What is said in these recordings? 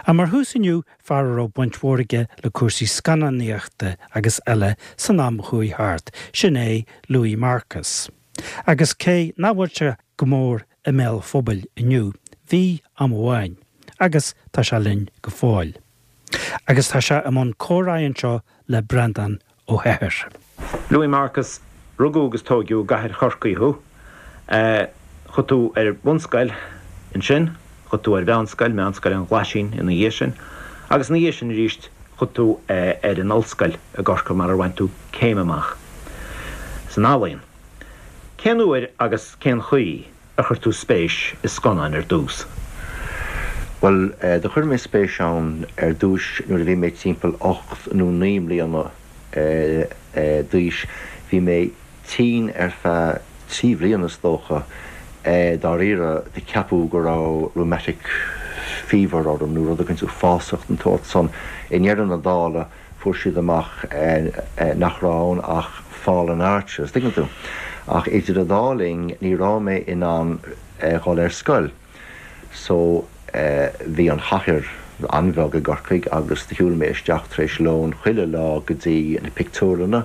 Ach mar thús inniu, fear a raibh baint mhór aige le cúrsaí scannánaíochta agus eile san am a chuaigh thart, sin é Louis Marcus. Agus cé nach bhfuil sé go mór i mbéal an phobail inniu, bhí am amháin, agus tá sé linn go fóill. Agus tá sé i mbun comhráidh anseo le Breandán Ó hEithir. Louis Marcus, Rugadh agus tóigeadh i gcathair Chorcaí thú. Chuaigh tú ar bhunscoil ansin, chuaigh tú ar mheánscoil, Meánscoil an Ghlaisín ina dhiaidh sin, agus ina dhiaidh sin arís chuaigh tú ar an ollscoil i gCorcaigh mar ar bhain tú céim amach san ealaíon. Cén uair agus cén chaoi ar chuir tú spéis i scannáin ar dtús? Bhuel, do chuir mé spéis ann ar dtúis nuair a bhí mé timpeall 8 nó 9 mbliana d'aois. Bhí mé tinn ar feadh 3 bhliana is dócha, dáiríre, do ceapadh go raibh rheumatic fever orm nó rud éicint uafásach den tsórt san. I ndeireadh na dála, fuair siad amach nach raibh ann ach fallen arches, tuigeann tú. Ach idir an dá linn ní raibh mé in ann dhul ar scoil. So bhí an chathair an-bheag i gCorcaigh agus do shiúil mé isteach tar éis lóin chuile lá go dtí na pictiúrlanna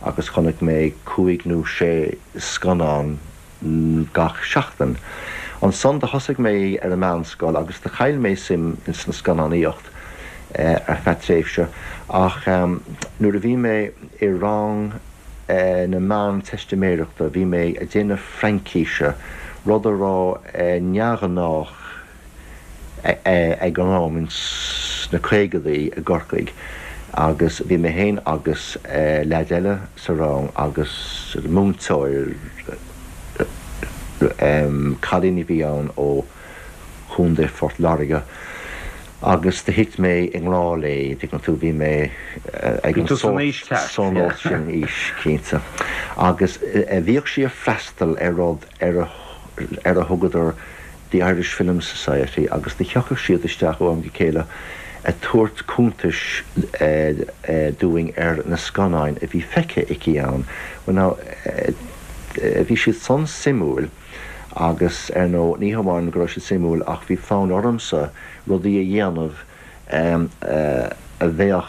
agus chonaic mé cúig nó sé scannán gach seachtain. Ansan do thosaigh mé ar an meánscoil agus do chaill mé suim ins an scannánaíocht ar feadh tréimhse ach nuair a bhí mé i rang na meánteistiméireachta bhí mé a déanamh Fraincíse, rud a raibh neamhghnách ag an am ins na caogadaí i gCorcaigh agus bhí mé féin agus leaid eile sa rang agus múinteoir, cailín a bhí ann ó Chontae Phort Láirge agus do thit mé i ngrá léi, tuigeann tú, bhí mé ag an sórt sin aois, cinnte. Agus bhíodh sí ag freastal ar rud ar a thugadar The Irish Film Society agus do thiocfadh siad isteach ó am go chéile a tabhairt cuntais dúinn ar na scannáin a bhí feicthe aici ann. Well now, bhí siad san suimiúil agus ar ndóigh ní hamháin go raibh siad suimiúil ach bhí fonn ormsa rudaí a dhéanamh a bheadh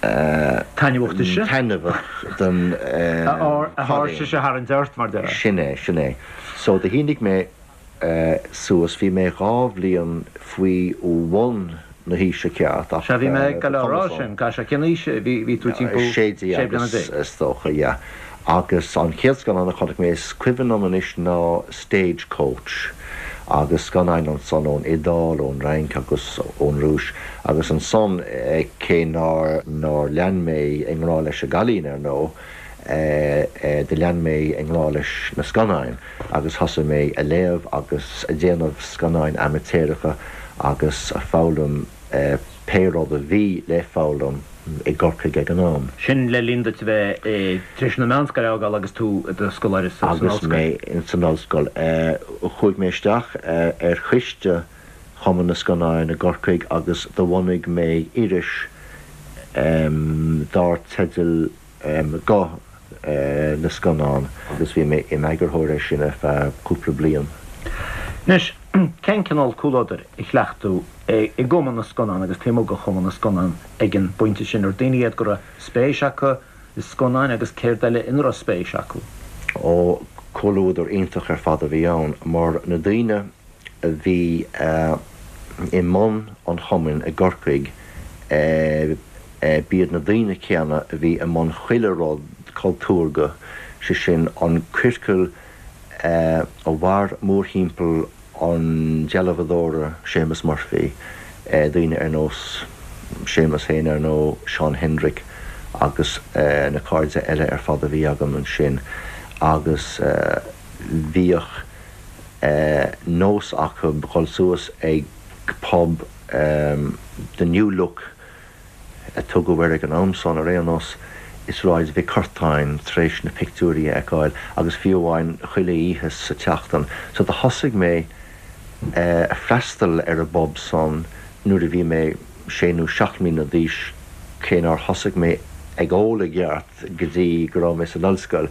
Taitneamhach duitse? Taitneamhach don Aird a tharraingt ort, mar déarfá. Sin é, sin é. So do shínigh mé suas, bhí mé dhá bhliain faoi bhun na haoise ceart ach Sea, bhí mé ag dul a rá sin, sea, cén aois a bhí, bhí tú timpeall sé bliana déag. Is dócha, yeah. Agus an chéad scannán a chonaic mé, is cuimhin liom anois ná Stagecoach agus scannáin ansan ón Iodáil, ón Fhrainc agus ón Rúis agus ansan cé nár nár lean mé i ngrá leis an gcailín ar ndóigh, do lean mé i ngrá leis na scannáin agus thosaigh mé a léamh agus a déanamh scannáin amaitéaracha agus a foghlaim pé rud a bhí le foghlaim i gCorcaigh ag an am. Sin le linn duit a bheith tar éis na meánscoile a fhágáil agus tú i do scoláire san ollscoil. Agus mé ins an ollscoil. Chuaigh mé isteach ar choiste Chumann na Scannán i gCorcaigh agus do bhunaigh mé iris dár teideal Guth na Scannán agus bhí mé im eagarthóir air sin ar feadh cúpla bliain. Anois, cén cineál comhluadair a chleacht tú i gCumann na Scannán agus taobh amuigh de Chumann na Scannán ag an bpointe sin? Ar daoine iad go raibh spéis acu i scannáin agus céard eile ina raibh spéis acu? Ó, comhluadar iontach ar fad a bhí ann mar na daoine a bhí i mbun an chumainn i gCorcaigh, b'iad na daoine céanna a bhí i mbun chuile rud cultúrtha, sé sin an ciorcal a mhair mórthimpeall an dealbhadóra Séamus Murphy, daoine ar nós Séamus féin ar ndóigh, Seán Hendrick agus na cairde eile ar fad a bhí agam ansin agus bhíodh nós acu dhul suas ag pub The New Look a tugadh air ag an am san, ar aon nós, i Sráid Mhic Curtáin tar éis na pictiúirí a fheiceáil agus fiú amháin chuile oíche sa tseachtain. So do thosaigh mé a freastal ar an bpub san nuair a bhí mé sé nó seacht mbliana d'aois, cé nár thosaigh mé ag ól i gceart go dtí go raibh mé san ollscoil.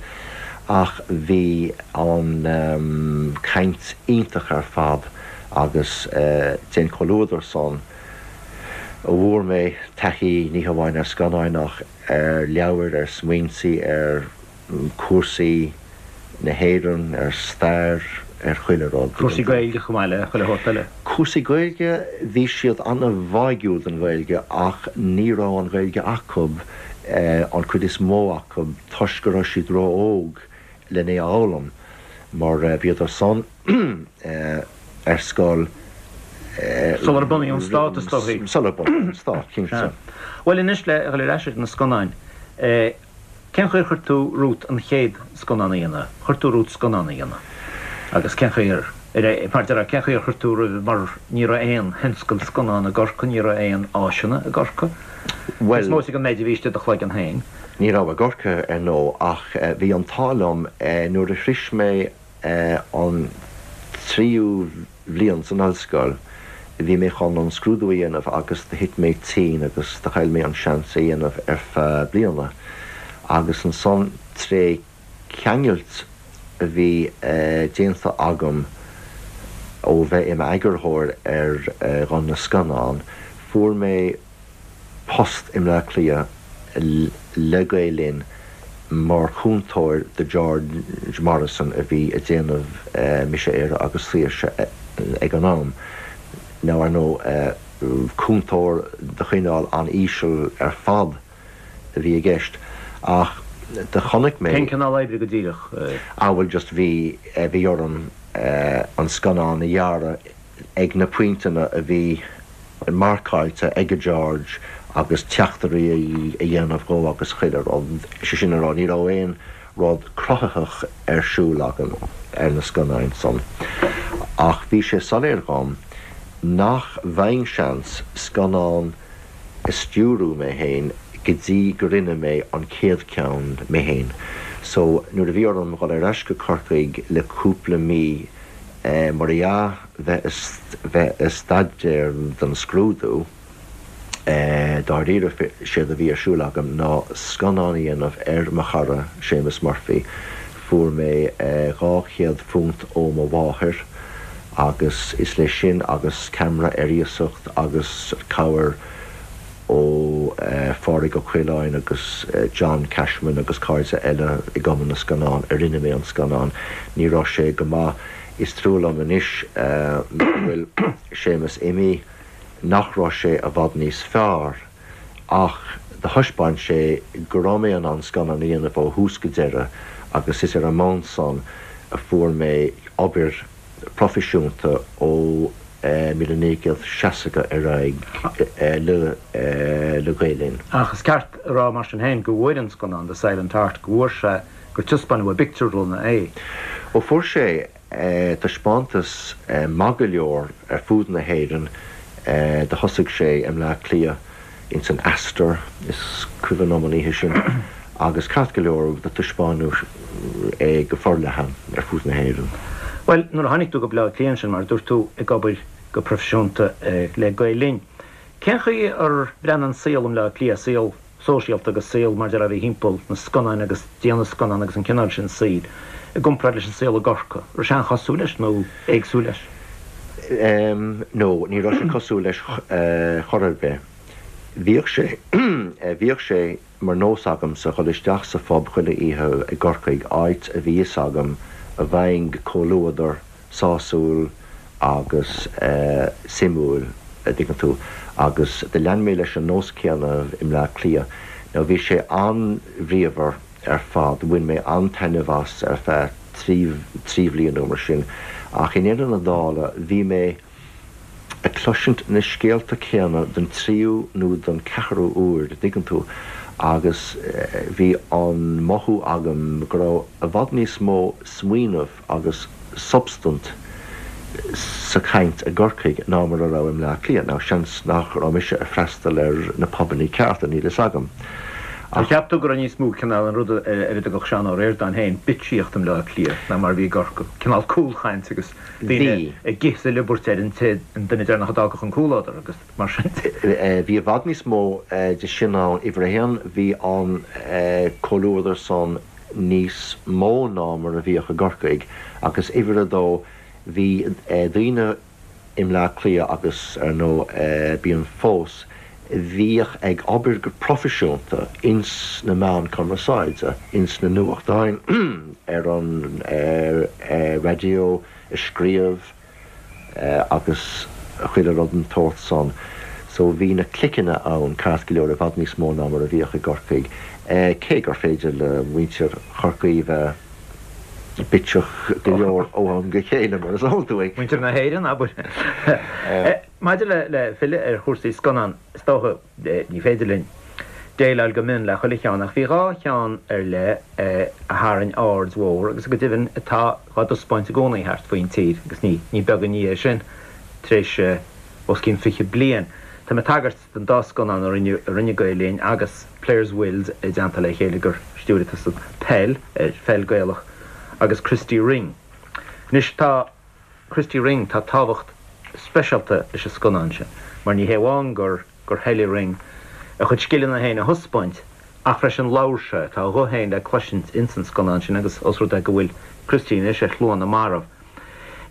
Ach bhí an chaint iontach ar fad. Agus dén chomhluadar san a bhfuair mé taithí ní hamháin ar scannáin ach ar leabhair, ar smaointí, ar chúrsaí na hÉireann, ar stair, ar chuile rud. Cúrsaí Gaeilge chomh maith le chuile shórt eile. Cúrsaí Gaeilge, bhí siad an-bháúil don Ghaeilge ach ní raibh an Ghaeilge acu, an chuid is mó acu, toisc go raibh siad ró-óg len é a fhoghlaim mar bhíodar san ar scoil. Sular bunaíodh an stát, is dóigh. Sular bunaíodh an stát, cinnte. Bhuel anois le dhul ar ais ar na scannáin, cén chaoi ar chuir tú romhat an chéad scannán a dhéanamh? Chuir tú romhat scannán a dhéanamh agus cén chaoi ar, mar a déarfá, cén chaoi ar chuir tú roimhe mar ní raibh aon thionscal scannán i gCorcaigh, ní raibh aon áiseanna i gCorcaigh. Bhuel. Is móite an méid a bhí istigh i do chloigeann féin. Ní raibh i gCorcaigh, ar ndóigh, ach bhí an t-ádh liom nuair a shrois mé an tríú bhliain san ollscoil, bhí mé chun an scrúdú a dhéanamh agus do thit mé tinn agus do chaill mé an seans é dhéanamh ar feadh bliana. Agus ansan tré ceangailt a bhí déanta agam ó bheith i m'eagarthóir ar Ghuth na Scannán, fuair mé post i mBleá Cliath le Gael Linn mar chúntóir do George Morrison a bhí ag déanamh Mise Éire agus Saoirse ag an am. Now ar ndóigh cúntóir de chineál an-íseal ar fad a bhí i gceist ach do chonaic mé. Cén cineál oibre go díreach? Ah bhuel just bhí, bhí orm an scannán a ghearradh ag na pointeanna a bhí marcáilte ag George agus teachtairí a dhéanamh dhó agus chuile rud, sé sin a rá, ní raibh aon rud cruthaitheach ar siúl agam ar na scannáin san. Ach bhí sé soiléir dhom nach bhfaighinn seans scannán a stiúrú mé fhéin go dtí go rinne mé an chéad cheann mé fhéin. So nuair a bhí orm dhul ar ais go Corcaigh le cúpla mí mar dhea, bheith bheith ag staidéar don scrúdú, dáiríre, séard a bhí ar siúl agam ná scannán a dhéanamh ar mo chara Séamus Murphy. Fuair mé £200 ó mo mháthair agus is leis sin agus ceamara ar iasacht agus cabhair ó Phádraig Ó Coileáin agus John Cashman agus cairde eile i gCumann na Scannán a rinne mé an scannán. Ní raibh sé go maith. Is trua liom anois go bhfuil Séamus imithe nach raibh sé i bhfad níos fearr ach do thaispeáin sé go raibh mé in ann scannán a dhéanamh ó thús go deireadh agus is ar an mbonn san a fuair mé obair proifisiúnta ó 1960 ar aghaidh le Gael Linn. Ach is ceart a rá mar sin féin go bhfuair an scannán The Silent Heart, go bhfuair sé, gur taispeánadh i bpictiúrlanna é. Ó fuair sé taispeántas maith go leor ar fud na hÉireann. Do thosaigh sé i mBleá Cliath ins an Astor, is cuimhin liom an oíche sin, agus ceart go leor do taispeánadh é go forleathan ar fud na hÉireann. Bhuel, nuair a tháinig tú go Bleá Cliath ansin, mar a dúirt tú, ag obair go proifisiúnta le Gael Linn, cén chaoi ar bhreathnaigh an saol i mBleá Cliath, saol sóisialta agus saol mar déarfá a bhí thimpeall na scannáin agus déanamh scannán agus an cineál sin saoil, i gcomparáid leis an saol i gCorcaigh? Raibh sé an-chosúil leis nó éagsúil leis? No, ní raibh sé cosúil leis chor ar bith. Bhíodh sé, bhíodh sé mar nós agamsa dhul isteach sa phub chuile oíche i gCorcaigh, áit a bhí fhios agam a bhfaighinn comhluadar sásúil agus suimiúil, a dtuigeann tú, agus do lean mé leis an nós céanna i mBleá Cliath. Now bhí sé an-bhríomhar ar fad, bhain mé an-taitneamh as ar feadh trí bhliain nó mar sin, ach i ndeireadh na dála bhí mé ag cloisint na scéalta céanna don tríú nó don ceathrú uair, a dtuigeann tú, agus bhí an mothú agam go raibh i bhfad níos mó smaoineamh agus substaint sa chaint i gCorcaigh ná mar a raibh i mBleá Cliath. Now, seans nach raibh mise ag freastal ar na pubannaí cearta, níl fhios agam. Ar cheap tú go raibh níos mó cineál an rud ar a dtugadh Seán Ó Ríordáin féin 'bitsíocht' i mBleá Cliath ná mar a bhí i gCorcaigh? Cineál cúlchaint agus daoine ag ithe is ag liobairt ar an té, an duine deireanach a d'fhágfadh an comhluadar agus mar sin de. Bhí i bhfad níos mó de sin ann. Uimhir a haon, bhí an comhluadar san níos mó ná mar a bhíodh i gCorcaigh agus uimhir a dó bhí daoine. i mBleá Cliath agus ar ndóigh bíonn fós, bhíodh ag obair go proifisiúnta ins na meáin cumarsáide, ins na nuachtáin, ar an raidió, ag scríobh agus chuile rud den tsórt san. So bhí na cliceanna ann ceart go leor i bhfad níos mó ná mar a bhíodh i gCorcaigh, cé gur féidir le muintir Chorcaí bheith bitseach go leor ó am go chéile, mar is eol dúinn. Muintir na hÉireann, abair. Maidir le filleadh ar chúrsaí scannán, is dócha, ní féidir linn déileáil go mion le chuile cheann, ach bhí 2 cheann ar leith a tharraing aird mhór agus go deimhin atá dhá dtaispeáint i gcónaí thart faoin tír agus ní beag an ní é sin tar éis os cionn 20 bliain. Tá mé ag tagairt don dá scannán a rinne a rinne Gael Linn agus Players Wills i dteannta le chéile gur stiúirigh tusa Peil ar pheil Gaelach agus Christy Ring. Anois tá. Christy Ring, Tá tábhacht speisialta leis an scannán sin mar ní hé amháin gur gur thoiligh Ring a chuid scileanna féin a thaispeáint ach freisin labhair sé, tá a ghuth féin le cloisint ins an scannán sin agus os rud é go bhfuil Christy anois ar shlua na marbh.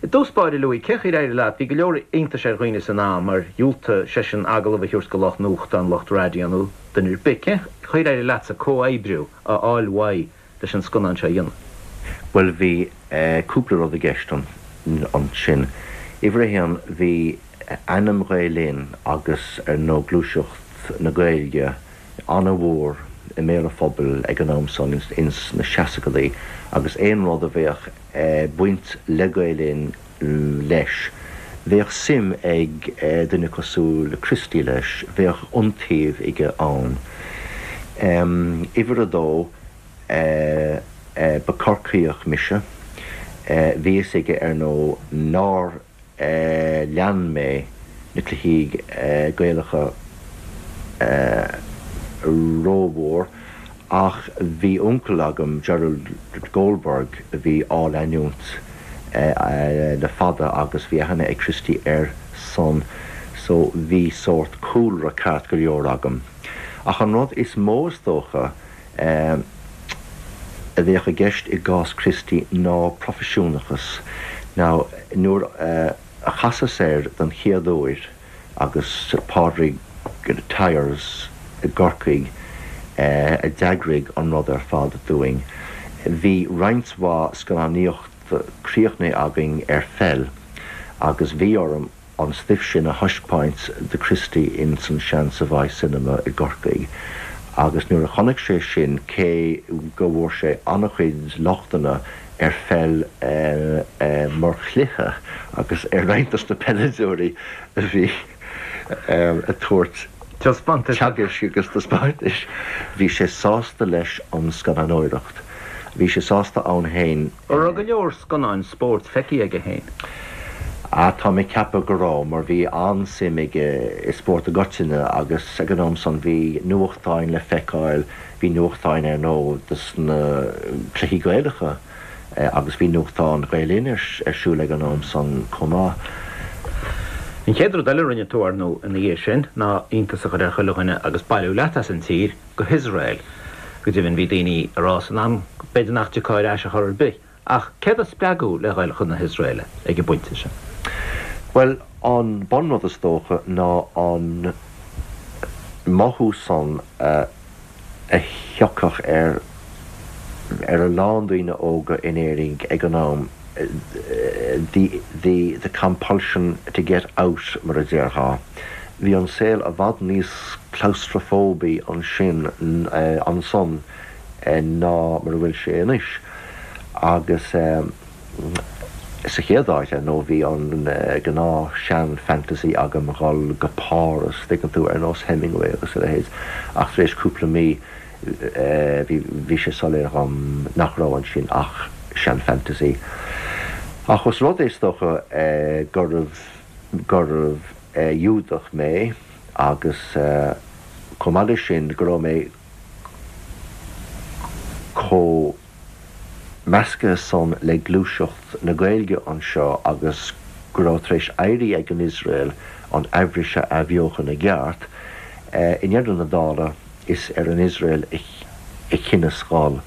I dtús báire, Louis, cén chaoi ar éirigh leat? Bhí go leor iontais ar dhaoine san am ar dhiúltaigh seisean agallamh a thabhairt do lucht nuachtáin, lucht raidió nó duine ar bith. Cén chaoi ar éirigh leatsa comhoibriú a fháil uaidh leis an scannán seo a dhéanamh? Bhuel, bhí cúpla rud i gceist ansin. Uimhir a haon, bhí ainm Ghael Linn agus ar ndóigh gluaiseacht na Gaeilge an-mhór i mbéal an phobail ag an am san ins na seascadaí agus aon rud a bheadh baint le Gael Linn leis, bheadh suim ag duine cosúil le Christy leis, bheadh iontaoibh aige ann. Uimhir a dó, ba Corcaíoch mise. Bhí fhios aige, ar ndóigh, nár lean mé na cluichí Gaelacha rómhór ach bhí uncail agam, Gerald Goldberg, a bhí á leanúint le fada agus bhí aithne ag Christy air san so bhí sórt cúlra ceart go leor agam. Ach an rud is mó is dócha, a bheadh i gceist i gcás Christy ná proifisiúnachas. Now, nuair a chasas air don chéad uair agus Pádraig Tyers i gCorcaigh a d'eagraigh an rud ar fad dúinn, bhí roinnt mhaith scannánaíocht críochnaithe againn ar pheil agus bhí orm an stuif sin a thaispeáint do Christy ins an sean Savoy Cinema i gCorcaigh agus nuair a chonaic sé sin, cé go bhfuair sé an-chuid lochtanna ar pheil mar chluiche agus ar roinnt dos na peileadóirí a bhí ag tabhairt teagaisc agus taispeántais, bhí sé sásta leis an scannánóireacht. Bhí sé sásta ann féin. An raibh go leor scannáin spóirt feicthe aige féin? Ah, tá mé ag ceapadh go raibh, mar bhí an-suim aige i spórt i gcoitinne agus ag an am san bhí nuachtáin le feiceáil, bhí nuachtáin ar ndóigh dos na cluichí Gaelacha agus bhí nuachtán Ghael Linn ar siúl ag an am san chomh maith. An chéad rud eile a rinne tú, ar ndóigh, ina dhiaidh sin ná iontas a chur ar chuile dhuine agus bailiú leat as an tír go hIosrael. Go deimhin bhí daoine ag rá san am b'fhéidir nach dtiocfá ar ais ar chor ar bith. Ach céard a spreag thú le dhul chun na hIosraeile ag an bpointe sin? Bhuel, an bunrud is dócha ná an mothú san a thiocfadh ar ar a lán daoine óga in Éirinn ag an am, the the the compulsion to get out mar a déarfá. Bhí an saol i bhfad níos claustrafóbaí ansin ansan ná mar a bhfuil sé anois. Agus sa chéad áit, ar ndóigh, bhí an gnáth sean-fantasy agam dhul go Páras, tuigeann tú, ar nós Hemingway agus a leithéid, ach tar éis cúpla mí bhí bhí sé soiléir dhom nach raibh ansin ach sean-fantasy. Ach os rud é, is dócha, gurbh gurbh Iúdach mé agus chomh maith leis sin go raibh mé chomh measctha san le gluaiseacht na Gaeilge anseo agus go raibh tar éis éirí ag an Iosrael an Eabhrais a athbheochan i gceart, i ndeireadh na dála is ar an Iosrael a chinneas dhul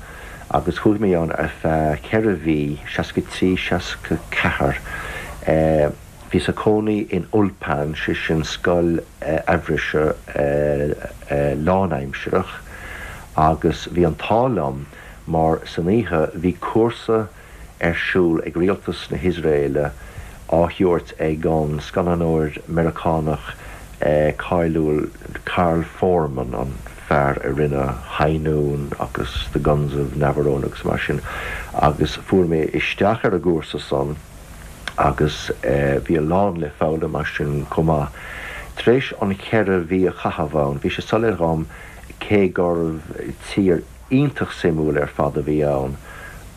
agus chuaigh mé ann ar feadh 4 mhí, 63, 64. Bhíos ag cónaí in Ulpan, sé sin scoil Eabhraise lánaimsearach, agus bhí an t-ádh liom mar san oíche bhí cúrsa ar siúl ag rialtas na hIosraeile á thabhairt ag an scannánóir Meiriceánach cáiliúil Carl Foreman, an fear a rinne High Noon agus The Guns of Navarone agus mar sin, agus fuair mé isteach ar an gcúrsa san agus bhí a lán le foghlaim as sin chomh maith. Tar éis an cheithre mhí a chaitheamh ann, bhí sé soiléir dhom cé gurbh tír iontach suimiúil ar fad a bhí ann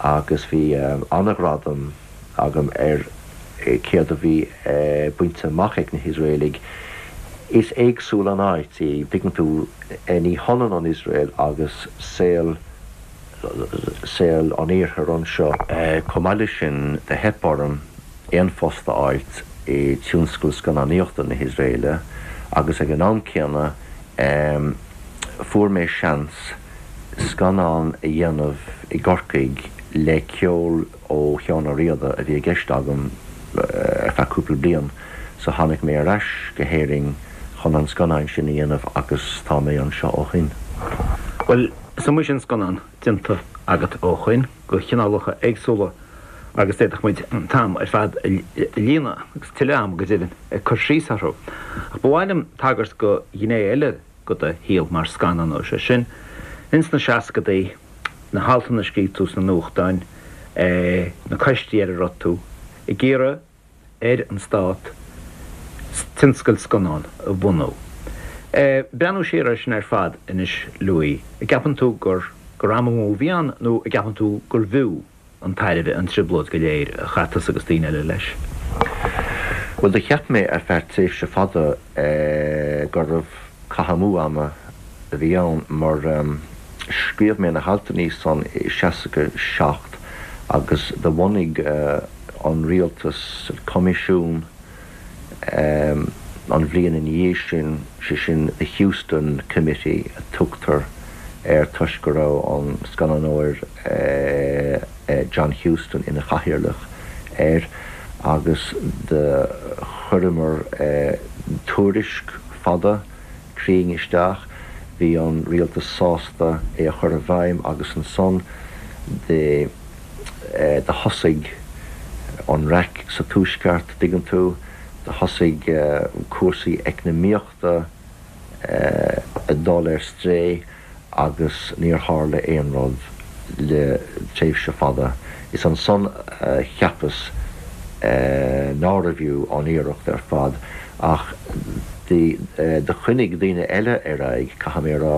agus bhí an-ghradam agam ar céard a bhí bainte amach ag na hIosraelaigh. Is éagsúil an áit í, tuigeann tú, ní hionann an Iosrael agus saol saol an iarthair anseo. Chomh maith leis sin, do theip orm aon phost a fháilt i tionscal scannánaíochta na hIosraeile agus ag an am céanna fuair mé seans scannán a dhéanamh i gCorcaigh le ceol ó Sheán Ó Riada a bhí i gceist agam ar feadh cúpla bliain so tháinig mé ar ais go hÉirinn chun an scannán sin a dhéanamh agus tá mé anseo ó shoin. Bhuel, is iomaí sin scannán déanta agat ó shoin, de chineálacha éagsúla agus d'fhéadfadh muid an t-am ar fad a líonadh, agus tuilleadh ama go deimhin, ag cur síos orthu. Ach ba mhaith liom tagairt do ghné eile de do shaol mar scannánóir, sé sin, ins na seascadaí, na haltanna a scríobh tú sna nuachtáin, na coistí ar a raibh tú ag iarraidh ar an stát tionscal scannán a bhunú. Breathnú siar air sin ar fad anois, Louis, an gceapann tú gur gur am amú a bhí ann nó an gceapann tú gurbh fhiú an tairbhe an trioblóid go léir a chaith tusa agus daoine eile leis? Bhuel, do cheap mé ar feadh tréimhse fada gurbh caitheamh amú ama a bhí ann mar scríobh mé na haltanna san i 67 agus do bhunaigh an rialtas coimisiún an bhliain ina dhiaidh sin, sé sin The Huston Committee a tugtar air toisc go raibh an scannánóir John Huston ina chathaoirleach air agus do chuireamar tuairisc fada cruinn isteach. Bhí an rialtas sásta é a chur i bhfeidhm agus ansan do do thosaigh an raic sa Tuaisceart, dtuigeann tú, do thosaigh cúrsaí eacnamaíochta ag dul ar strae agus níor tharla aon rud le tréimhse fada. Is ansan a cheapas nárbh fhiú an iarracht ar fad ach do choinnigh daoine eile ar aghaidh, caithfidh mé a rá,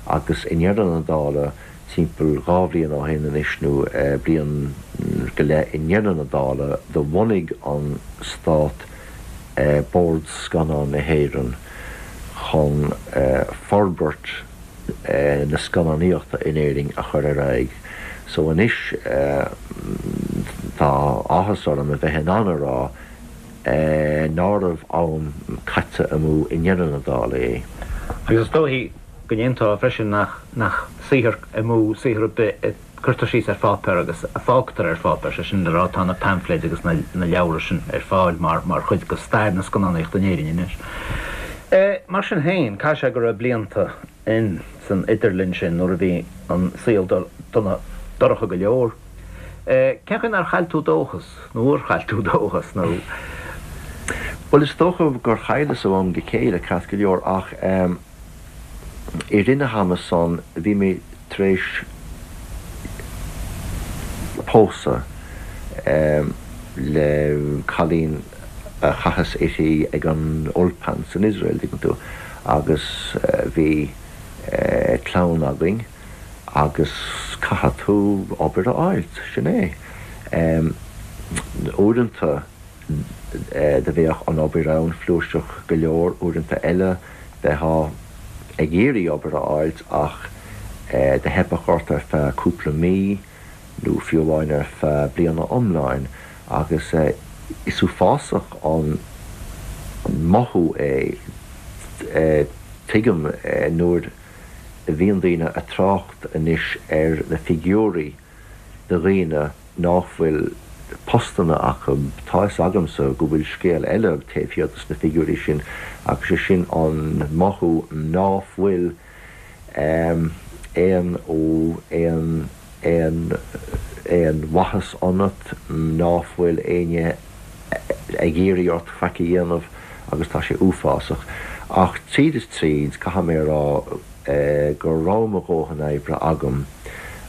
agus i ndeireadh na dála, timpeall dhá bhliain ó shin anois nó bliain go leith, i ndeireadh na dála, do bhunaigh an Stát Bord Scannán na hÉireann chun forbairt na scannánaíochta in Éirinn a chur ar aghaidh. So anois tá áthas orm a bheith in ann a rá nárbh am caite amú i ndeireadh na dála é. Agus is dóichí go n-aontófá freisin nach nach saothar amú saothar ar bith a cuirtear síos ar pháipéar agus a fágtar ar pháipéar, sé sin le rá tá na paimfléid agus na leabhra sin ar fáil mar mar chuid de stair na scannánaíochta in Éirinn anois. Mar sin féin, caithfidh sé go raibh blianta in san idirlinn sin nuair a bhí an saol dona dorcha go leor. Cén chaoi nár chaill tú dóchas, nó ar chaill tú dóchas, nó. Bhuel, is dócha gur chailleas ó am go chéile, ceart go leor, ach i rith na hama san bhí mé tar éis pósadh le cailín a chasas uirthi ag an Ulpan san Iosrael, dtuigeann tú, agus bhí clann againn agus caithfidh tú obair a fháilt, sin é. Uaireanta do bheadh an obair ann flúirseach go leor, uaireanta eile bheifeá ag iarraidh obair a fháilt ach do theipeadh ort ar feadh cúpla mí nó fiú amháin ar feadh bliana iomláin agus is uafásach an mothú é, tuigim nuair a bhíonn daoine a' trácht anois ar na figiúirí de dhaoine ná fuil. postanna acu. Tá 'fhios agamsa go bhfuil scéal eile taobh thiar dos na figiúirí sin agus sé sin an mothú ná fuil aon aon aon aon mhaitheas ionat, ná fuil éinne ag iarraidh ort faic a dhéanamh agus tá sé uafásach. Ach tríd is tríd, caithfidh mé a rá go raibh mo dhóthain oibre agam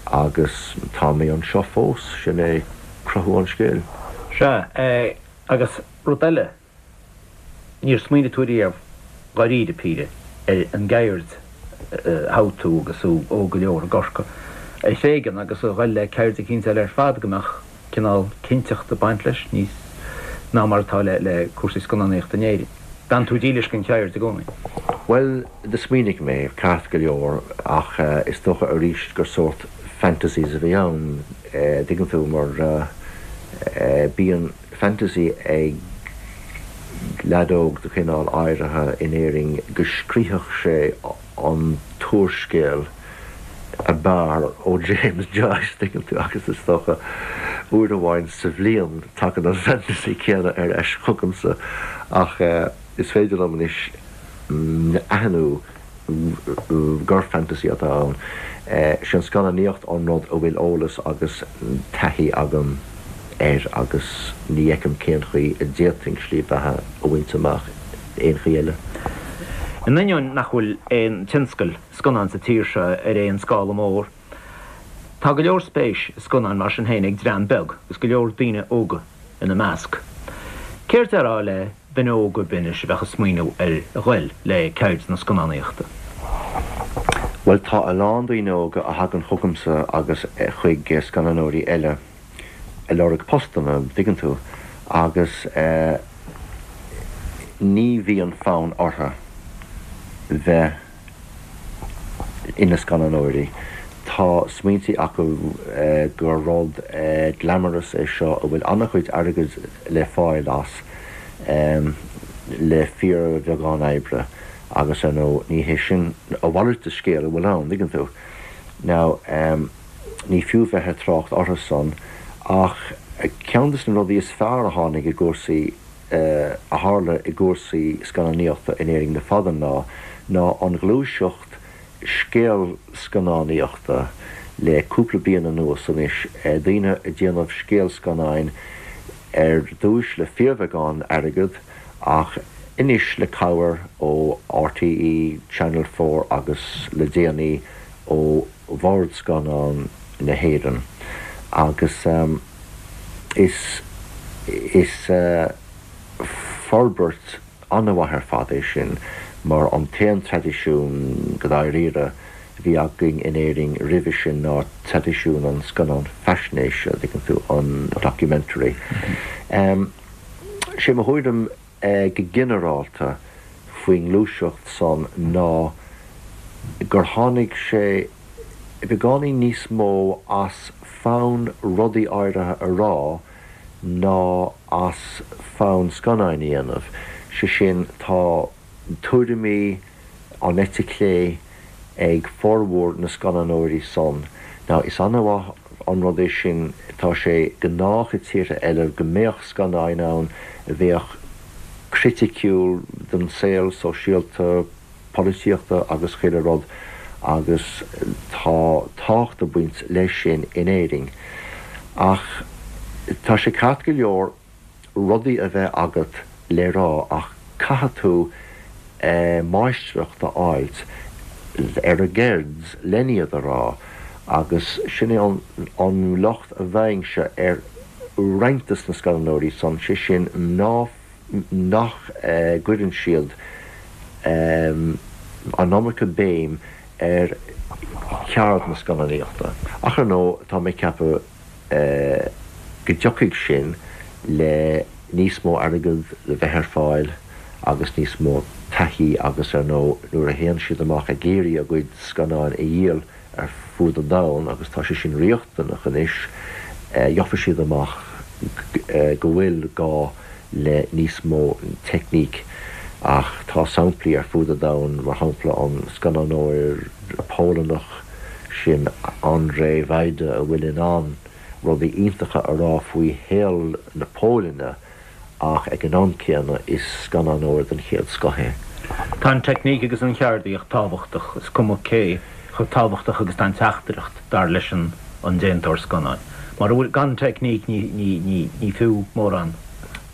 agus tá mé anseo fós, sin é cruthú an scéil. Sea, agus rud eile, Níor smaoinigh tú riamh, dháiríre píre, ar an gceird a thogh tú agus tú óg go leor i gCorcaigh a thréigean agus a dhul le ceird eicínt eile ar fad go mbeadh cineál cinnteachta ag baint leis níos ná mar atá le cúrsaí scannánaíochta in Éirinn. D'fhan tú dílis don cheird i gcónaí. Bhuel, do smaoinigh mé, ceart go leor, ach is dócha arís gur sórt fantasies a bhí ann, dtuigeann tú, mar bíonn. fantasy ag leaid óg de chineál áirithe in Éirinn go scríobhfadh sé an t-úrscéal ab fhearr ó James Joyce, tuigeann tú, agus is dócha uair amháin sa bhliain tagann an fantasy céanna ar ais chugamsa ach is féidir liom anois aithniú gur fantasy atá ann. Sé an scannánaíocht an rud a bhfuil eolas agus taithí agam air agus ní fheicim cén chaoi a d'fhéadfainn slí bheatha a bhaint amach aon chaoi eile. In ainneoin nach bhfuil aon tionscal scannán sa tír seo ar aon scála mór, tá go leor spéis i scannáin mar sin féin ag dream beag agus go leor daoine óga ina measc. Céard déarfá le duine óg ar bith anois a bheadh ag smaoineamh ar ghoil le ceird na scannánaíochta? Bhuel, tá a lán daoine óga a thagann chugamsa agus chuig scannánóirí eile ag lorg postanna, dtuigeann tú, agus ní bhíonn fonn orthu bheith ina scannánóirí. Tá smaointí acu gur rud glamorous é seo a bhfuil an-chuid airgid le fáil as le fíorbheagán oibre agus ar ndóigh ní hé sin, a mhalairt de scéal a bhfuil ann, dtuigeann tú. Now, ní fiú bheith ag trácht orthu san ach ceann de na rudaí is fearr a tháinig i gcúrsaí a tharla i gcúrsaí scannánaíochta in Éirinn le fada an lá ná an ghluaiseacht scéalscannánaíochta le cúpla bliain anuas anois, daoine ag déanamh scéalscannáin ar dtúis le fíorbheagán airgead ach anois le cabhair ó RTÉ, Channel 4 agus le déanaí ó Bhord Scannán na hÉireann agus is is forbairt an-mhaith ar fad é sin mar an t-aon traidisiún go dáiríre a bhí againn in Éirinn roimhe sin ná traidisiún an scannán faisnéise, an dtuigeann tú, an documentary. Sé mo thuairim go ginearálta faoin ngluaiseacht san ná gur tháinig sé beagáinín níos mó as fonn rudaí áirithe a rá ná as fonn scannáin a dhéanamh. Sé sin, tá tuairimí an eite chlé ag formhór na scannánóirí san. Now, is an-mhaith an rud é sin, tá sé gnách i tíortha eile go mbeadh scannáin ann a bheadh criticiúil den saol sóisialta, polaitíochta agus chuile rud agus tá tábhacht ag baint leis sin in Éirinn. Ach tá sé ceart go leor rudaí a bheith agat le rá ach caithfidh tú máistreacht a fháilt ar an gceird len iad a rá agus sin é an locht a bhfaighimse ar roinnt de na scannánóirí san, sé sin ná nach gcuireann siad an iomarca béim ar cheard na scannánaíochta. Ach ar ndóigh, tá mé ag ceapadh go dtiocfaidh sin le níos mó airgead le bheith ar fáil agus níos mó taithí agus ar ndóigh nuair a théann siad amach ag iarraidh a gcuid scannáin a dhíol ar fud an domhain, agus tá sé sin riachtanach anois, gheobhaidh siad amach go bhfuil gá le níos mó teicníc. Ach tá samplaí ar fud an domhain, mar shampla an scannánóir Polannach sin Andrzej Wajda a bhfuil in ann. rudaí iontacha a rá faoi shaol na Póilne ach ag an am céanna is scannánóir den chéad scoth é. Tá an teicníc agus an cheardaíocht tábhachtach, is cuma cé chomh tábhachtach agus atá an teachtaireacht, dar leis an déantóir scannáin. Mura bhfuil, gan teicníc ní ní fiú mórán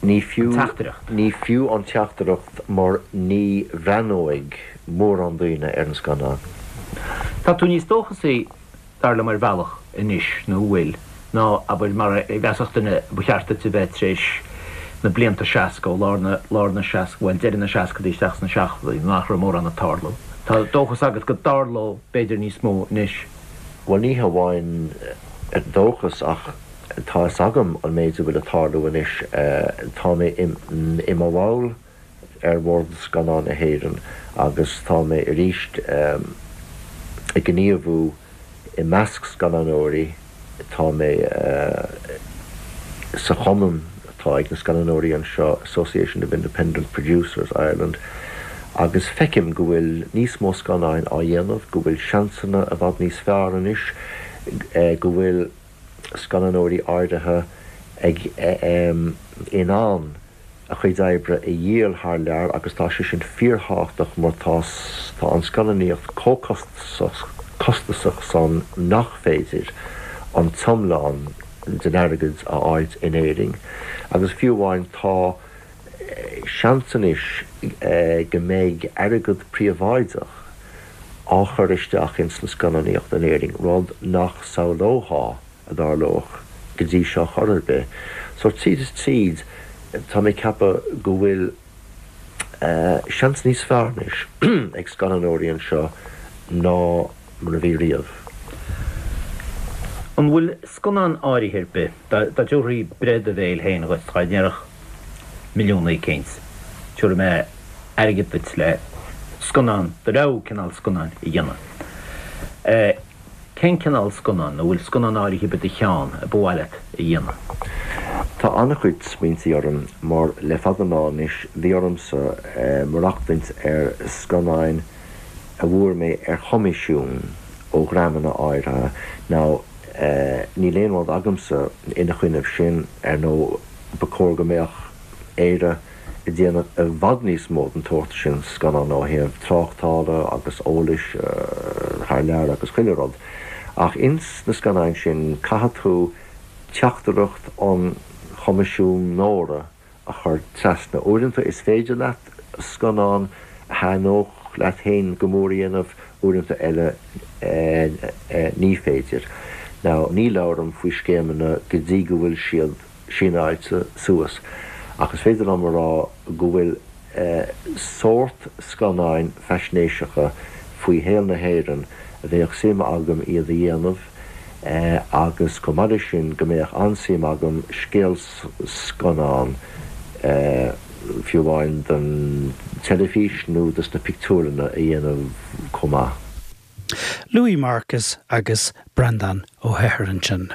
Ní fiú, an teachtaireacht. Ní fiú an teachtaireacht mar ní bhreathnóidh mórán daoine ar an scannán. Tá tú níos dóchasaí dar liom ar bhealach anois, nó an bhfuil, ná, abair, mar a mheasfadh duine ba cheart duit a bheith tar éis na blianta 60, ó lár na, lár na seasc, bhuel, deireadh na seascadaí isteach sna seachtóidí, nach raibh mórán ag tarlú. Tá dóchas agat go dtarlódh, b'fhéidir, níos mó anois. Bhuel, ní hamháin dóchas ach tá fhios agam an méid a bhfuil ag tarlú anois. Tá mé i mo bhall ar Bhord Scannán na hÉireann agus tá mé arís ag gníomhú i measc scannánóirí. Tá mé sa chumann atá ag na scannánóirí anseo, Association of Independent Producers Ireland, agus feicim go bhfuil níos mó scannáin á dhéanamh, go bhfuil seansanna i bhfad níos fearr anois, go bhfuil scannánóirí áirithe ag in ann a chuid oibre a dhíol thar lear agus tá sé sin fíorthábhachtach mar tá tá an scannánaíocht chomh costasach san nach féidir an t-iomlán den airgead a fháilt in Éirinn agus fiú amháin tá seans anois go mbeidh airgead príobháideach á chur isteach ins an scannánaíocht in Éirinn, rud nach samhlófá a dtarlódh go dtí seo chor ar bith. So tríd is tríd tá mé ag ceapadh go bhfuil seans níos fearr anois ag scannánóirí anseo ná mar a bhí riamh. An bhfuil scannán áirithe ar bith, dá dtabharfaí breith do bhéil féin dhuit, dá ndéarfadh milliún éicint, tabharfaidh mé airgead duit le scannán, do rogha cineál scannáin a dhéanamh. Cén cineál scannán, nó bhfuil scannán áirithe ar bith i do cheann a ba mhaith leat a dhéanamh? Tá an-chuid smaointí orm mar le fada an lá anois bhí ormsa maireachtaint ar scannáin a bhfuair mé ar choimisiún ó dhreamanna áirithe. Now níl aon rud agamsa ina choinnibh sin, ar ndóigh ba chóir go mbeadh Éire ag déanamh i bhfad níos mó den tsórt sin scannán ó thaobh tráchtála agus eolais thar lear agus chuile rud. Ach ins na scannáin sin caithfidh tú teachtaireacht an choimisiúnóra a chur trasna. Uaireanta is féidir leat scannán a thaitneodh leat féin go mór a dhéanamh, uaireanta eile ní féidir. Now ní labhraim faoi scéimeanna go dtí go bhfuil siad síneáilte suas, ach is féidir liom a rá go bhfuil sórt scannáin faisnéiseacha faoi shaol na hÉireann a bheadh suim agam iad a dhéanamh agus chomh maith leis sin go mbeadh an-suim agam scéalscannán fiú amháin don teilifís nó dos na pictiúrlanna a dhéanamh chomh maith. Louis Marcus agus Breandán Ó hEithir ansin.